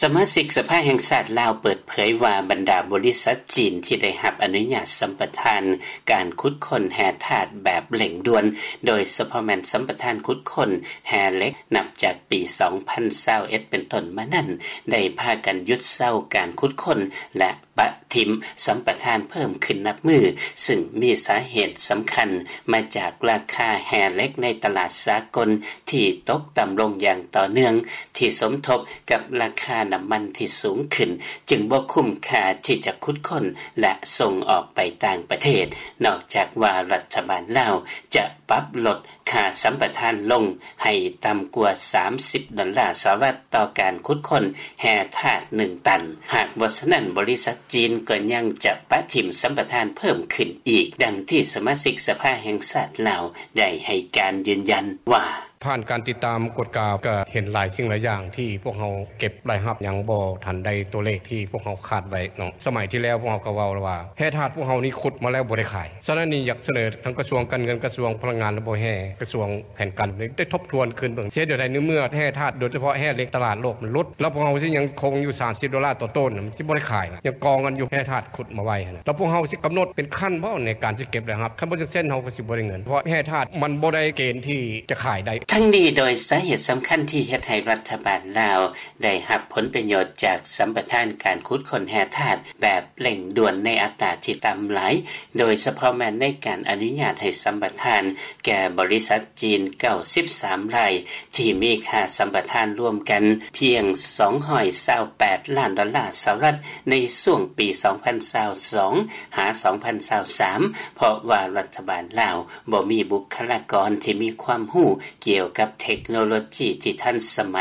ສະມາຊິກສະພາແຫ່ງຊາດລາວເປີດເຜີຍວ່າ ບັນດາບໍລິສັດຈີນທີ່ໄດ້ຮັບອະນຸຍາດສຳປະທານການຂຸດຄົ້ນແຮ່ທາດແບບເລັ່ງດ່ວນ ໂດຍສະເພາະແມ່ນສຳປະທານຂຸດຄົ້ນແຮ່ເຫຼັກ ນັບຈາກປີສອງພັນຊາວເອັດເປັນຕົ້ນມານັ້ນ ໄດ້ພາກັນຢຸດເຊົາການຂຸດຄົ້ນ ແລະ ປະຖິ້ມສຳປະທານເພີ່ມຂຶ້ນນັບມື້, ຊຶ່ງມີສາເຫດສຳຄັນມາຈາກລາຄາແຮ່ເຫຼັກໃນຕະຫຼາດສາກົນທີ່ຕົກຕ່ຳລົງຢ່າງຕໍ່ເນື່ອງ, ທີ່ສົມທົບກັບລາຄານ້ຳມັນທີ່ສູງຂຶ້ນ, ຈຶ່ງບໍ່ຄຸ້ມຄ່າທີ່ຈະຂຸດຄົ້ນ ແລະ ສົ່ງອອກໄປຕ່າງປະເທດ. ນອກຈາກວ່າລັດຖະບານລາວຈະປັບລົດ ຄ່າສຳປະທານລົງໃຫ້ຕ່ຳກວ່າສາມສິບດອນລາສະຫະລັດຕໍ່ການຂຸດຄົ້ນແຮ່ທາດໜຶ່ງຕັນ. ຫາກບໍ່ສະນັ້ນ, ບໍລິສັດຈີນກໍຍັງຈະປະຖິ້ມສຳປະທານເພີ່ມຂຶ້ນອີກ, ດັ່ງທີ່ສະມາຊິກສະພາແຫ່ງຊາດລາວໄດ້ໃຫ້ການຢືນຢັນວ່າ: ຜ່ານການຕິດຕາມກວດກາ ກໍເຫັນຫຼາຍສິ່ງຫຼາຍຢ່າງທີ່ພວກເຮົາເກັບລາຍຮັບຍັງບໍ່ທັນໄດ້ຕົວເລກທີ່ພວກເຮົາຄາດໄວ້ເນາະ. ສະໄໝທີ່ແລ້ວພວກເຮົາກໍເວົ້າແລ້ວວ່າ ແຮ່ທາດພວກເຮົານີ້ຂຸດມາແລ້ວບໍ່ໄດ້ຂາຍ. ສະນັ້ນນີ້ຢາກສະເໜີທັງກະຊວງການເງິນ, ກະຊວງພະລັງງານ ແລະ ບໍ່ແຮ່, ກະຊວງແຜນການ ໄດ້ທົບທວນຄືນເບິ່ງ ເຮັດແນວໃດໃນເມື່ອແຮ່ທາດ ໂດຍສະເພາະແຮ່ເຫຼັກ ຕະຫຼາດໂລກມັນຫຼຸດ ແລ້ວພວກເຮົາຊິຍັງຄົງຢູ່ສາມສິບໂດລາຕໍ່ໂຕນ ມັນຊິບໍ່ໄດ້ຂາຍລະ ຍັງກອງກັນຢູ່ແຮ່ທາດຂຸດມາໄວ້ຫັ້ນນະ. ແລ້ວພວກເຮົາຊິກຳນົດເປັນຂັ້ນບໍ່ໃນການຊິເກັບລາຍຮັບ? ຄັນບໍ່ຈັ່ງຊັ້ນເຮົາກໍຊິບໍ່ໄດ້ເງິນ ເພາະແຮ່ທາດມັນບໍ່ໄດ້ເກນທີ່ຈະຂາຍໄດ້. ທັງນີ້ໂດຍສາເຫດສຳຄັນທີ່ເຮັດໃຫ້ລັດຖະບານລາວ ໄດ້ຮັບຜົນປະໂຫຍດຈາກສຳປະທານການຂຸດຄົ້ນແຮ່ທາດແບບເລັ່ງດ່ວນໃນອັດຕາທີ່ຕ່ຳຫຼາຍ, ໂດຍສະເພາະແມ່ນໃນການອະນຸຍາດໃຫ້ສຳປະທານແກ່ບໍລິສັດຈີນເກົ້າສິບສາມລາຍ ທີ່ມີຄ່າສຳປະທານລວມກັນພຽງສອງຮ້ອຍຊາວແປດລ້ານດອນລາສະຫະລັດ ໃນຊ່ວງປີສອງພັນຊາວສອງ ຫາ ສອງພັນຊາວສາມ ເພາະວ່າລັດຖະບານລາວ ບໍ່ມີບຸກຄະລາກອນທີ່ມີຄວາມຮູ້ກ່ຽວກັບເທັກໂນໂລຈີທີ່ທັນສະໄໝ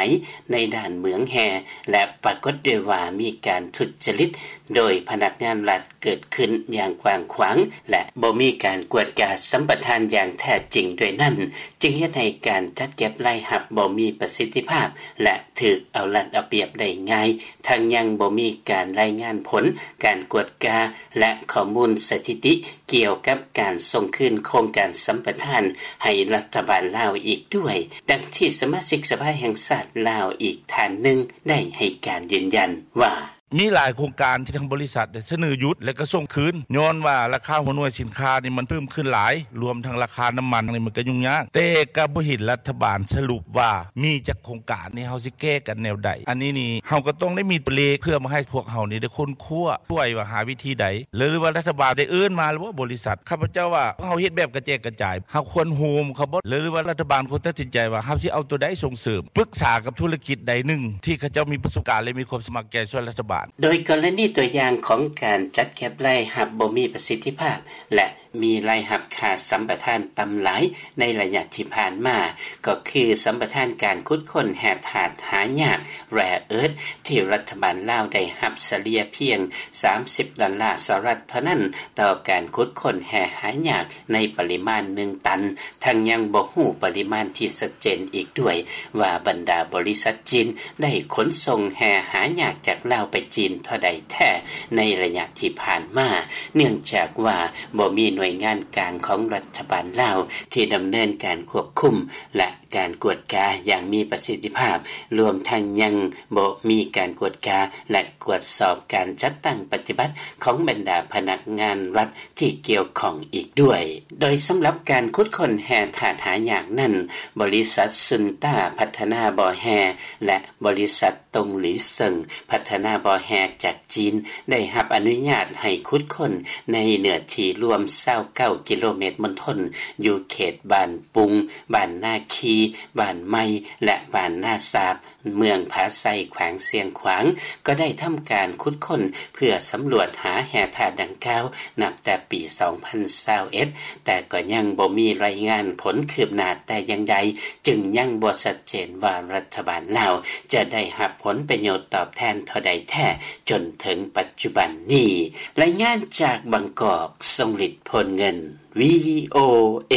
ໃນດ້ານເໝືອງແຮ່ ແລະ ປາກົດດ້ວຍວ່າມີການທຸດຈະລິດໂດຍພະນັກງານລັດເກີດຂຶ້ນຢ່າງກວ້າງຂວາງ ແລະ ບໍ່ມີການກວດກາສຳປະທານຢ່າງແທ້ຈິງດ້ວຍນັ້ນ, ຈຶ່ງເຮັດໃຫ້ການຈັດເກັບລາຍຮັບບໍ່ມີປະສິດທິພາບ ແລະ ຖືກເອົາລັດເອົາປຽບໄດ້ງ່າຍ, ທັງຍັງບໍ່ມີການລາຍງານຜົນການກວດກາ ແລະ ຂໍ້ມູນສະຖິຕິ ກ່ຽວກັບການສົ່ງຄືນໂຄງການສຳປະທານໃຫ້ລັດຖະບານລາວອີກດ້ວຍ, ດັ່ງທີ່ສະມາຊິກສະພາແຫ່ງຊາດລາວອີກທ່ານໜຶ່ງໄດ້ໃຫ້ການຢືນຢັນວ່າ: ມີຫຼາຍໂຄງການທີ່ທາງບໍລິສັດໄດ້ສະເໜີຢຸດ ແລະ ກໍສົ່ງຄືນ ຍ້ອນວ່າລາຄາຫົວໜ່ວຍສິນຄ້ານີ້ມັນເພີ່ມຂຶ້ນຫຼາຍ, ລວມທັງລາຄານ້ຳມັນນີ້ມັນກໍຫຍຸ້ງຍາກ, ແຕ່ກໍບໍ່ເຫັນລັດຖະບານສະຫຼຸບວ່າມີຈັກໂຄງການນີ້ ເຮົາຊິແກ້ກັນແນວໃດ. ອັນນີ້ນີ້ເຮົາກໍຕ້ອງໄດ້ມີຕົວເລກເພື່ອມາໃຫ້ພວກເຮົານີ້ໄດ້ຄົ້ນຄວ້າ ຊ່ວຍວ່າຫາວິທີໃດ ຫຼືວ່າລັດຖະບານໄດ້ເອີ້ນມາແລ້ວບໍ່ບໍລິສັດ? ຂ້າພະເຈົ້າວ່າເຮົາເຮັດແບບກະແຈກກະຈາຍ ເຮົາຄວນໂຮມເຂົາບໍ່ ຫຼືວ່າລັດຖະບານຄວນຕັດສິນໃຈວ່າເຮົາຊິເອົາຕົວໃດສົ່ງເສີມ ປຶກສາກັບທຸລະກິດໃດໜຶ່ງທີ່ເຂົາເຈົ້າມີປະສົບການ ແລະ ມີຄວາມສະໝັກໃຈຊ່ວຍລັດຖະບານ. ໂດຍກໍລະນີຕົວຢ່າງຂອງການຈັດເກັບລາຍຮັບບໍ່ມີປະສິດທິພາບ ແລະ ມີລາຍຮັບຄ່າສຳປະທານຕ່ຳຫຼາຍໃນໄລຍະທີ່ຜ່ານມາ ກໍຄືສຳປະທານການຂຸດຄົ້ນແຮ່ທາດຫາຍາກ rare earth ທີ່ລັດຖະບານລາວໄດ້ຮັບສະເລ່ຍພຽງສາມສິບດອນລາສະຫະລັດເທົ່ານັ້ນ ຕໍ່ການຂຸດຄົ້ນແຮ່ຫາຍາກໃນປະລິມານໜຶ່ງຕັນ, ທັງຍັງບໍ່ຮູ້ປະລິມານທີ່ຊັດເຈນອີກດ້ວຍວ່າບັນດາບໍລິສັດຈີນໄດ້ຂົນສົ່ງແຮ່ຫາຍາກຈາກລາວໄປຈີນເທົ່າໃດແທ້ໃນໄລຍະທີ່ຜ່ານມາ, ເນື່ອງຈາກວ່າບໍ່ມີໜ່ວຍງານກາງຂອງລັດຖະບານລາວທີ່ດຳເນີນການຄວບຄຸມ ແລະ ການກວດກາຢ່າງມີປະສິດທິພາບ, ລວມທັງຍັງບໍ່ມີການກວດກາ ແລະ ກວດສອບການຈັດຕັ້ງປະຕິບັດຂອງບັນດາພະນັກງານລັດທີ່ກ່ຽວຂ້ອງອີກດ້ວຍ. ໂດຍສຳລັບການຂຸດຄົ້ນແຮ່ທາດຫາຍາກນັ້ນ, ບໍລິສັດຊຸນຕ້າພັດທະນາບໍ່ແຮ່ ແລະ ບໍລິສັດ ຕົງຫຼີເຊິ່ງ ພັດທະນາບໍ່ແຮ່ຈາກຈີນ ໄດ້ຮັບອະນຸຍາດໃຫ້ຂຸດຄົ້ນໃນເນື້ອທີ່ລວມຊາວເກົ້າກິໂລເມດມົນທົນ ຢູ່ເຂດບ້ານປຸງ, ບ້ານນາຄີ, ບ້ານໃໝ່ ແລະ ບ້ານນາສາບ, ເມືອງຜາໄຊ, ແຂວງຊຽງຂວາງ ກໍໄດ້ທຳການຂຸດຄົ້ນເພື່ອສຳຫຼວດຫາແຮ່ທາດດັ່ງກ່າວ ນັບແຕ່ປີສອງພັນຊາວເອັດ ແຕ່ກໍຍັງບໍ່ມີລາຍງານຜົນຄືບໜ້າແຕ່ຢ່າງໃດ, ຈຶ່ງຍັງບໍ່ຊັດເຈນວ່າລັດຖະບານລາວຈະໄດ້ຮັບຜົນປະໂຫຍດຕອບແທນເທົ່າໃດແທ້ຈົນເຖິງປັດຈຸບັນນີ້. ລາຍງານຈາກບາງກອກ, ຊົງລິດ ໂພນເງິນ, ວີໂອເອ.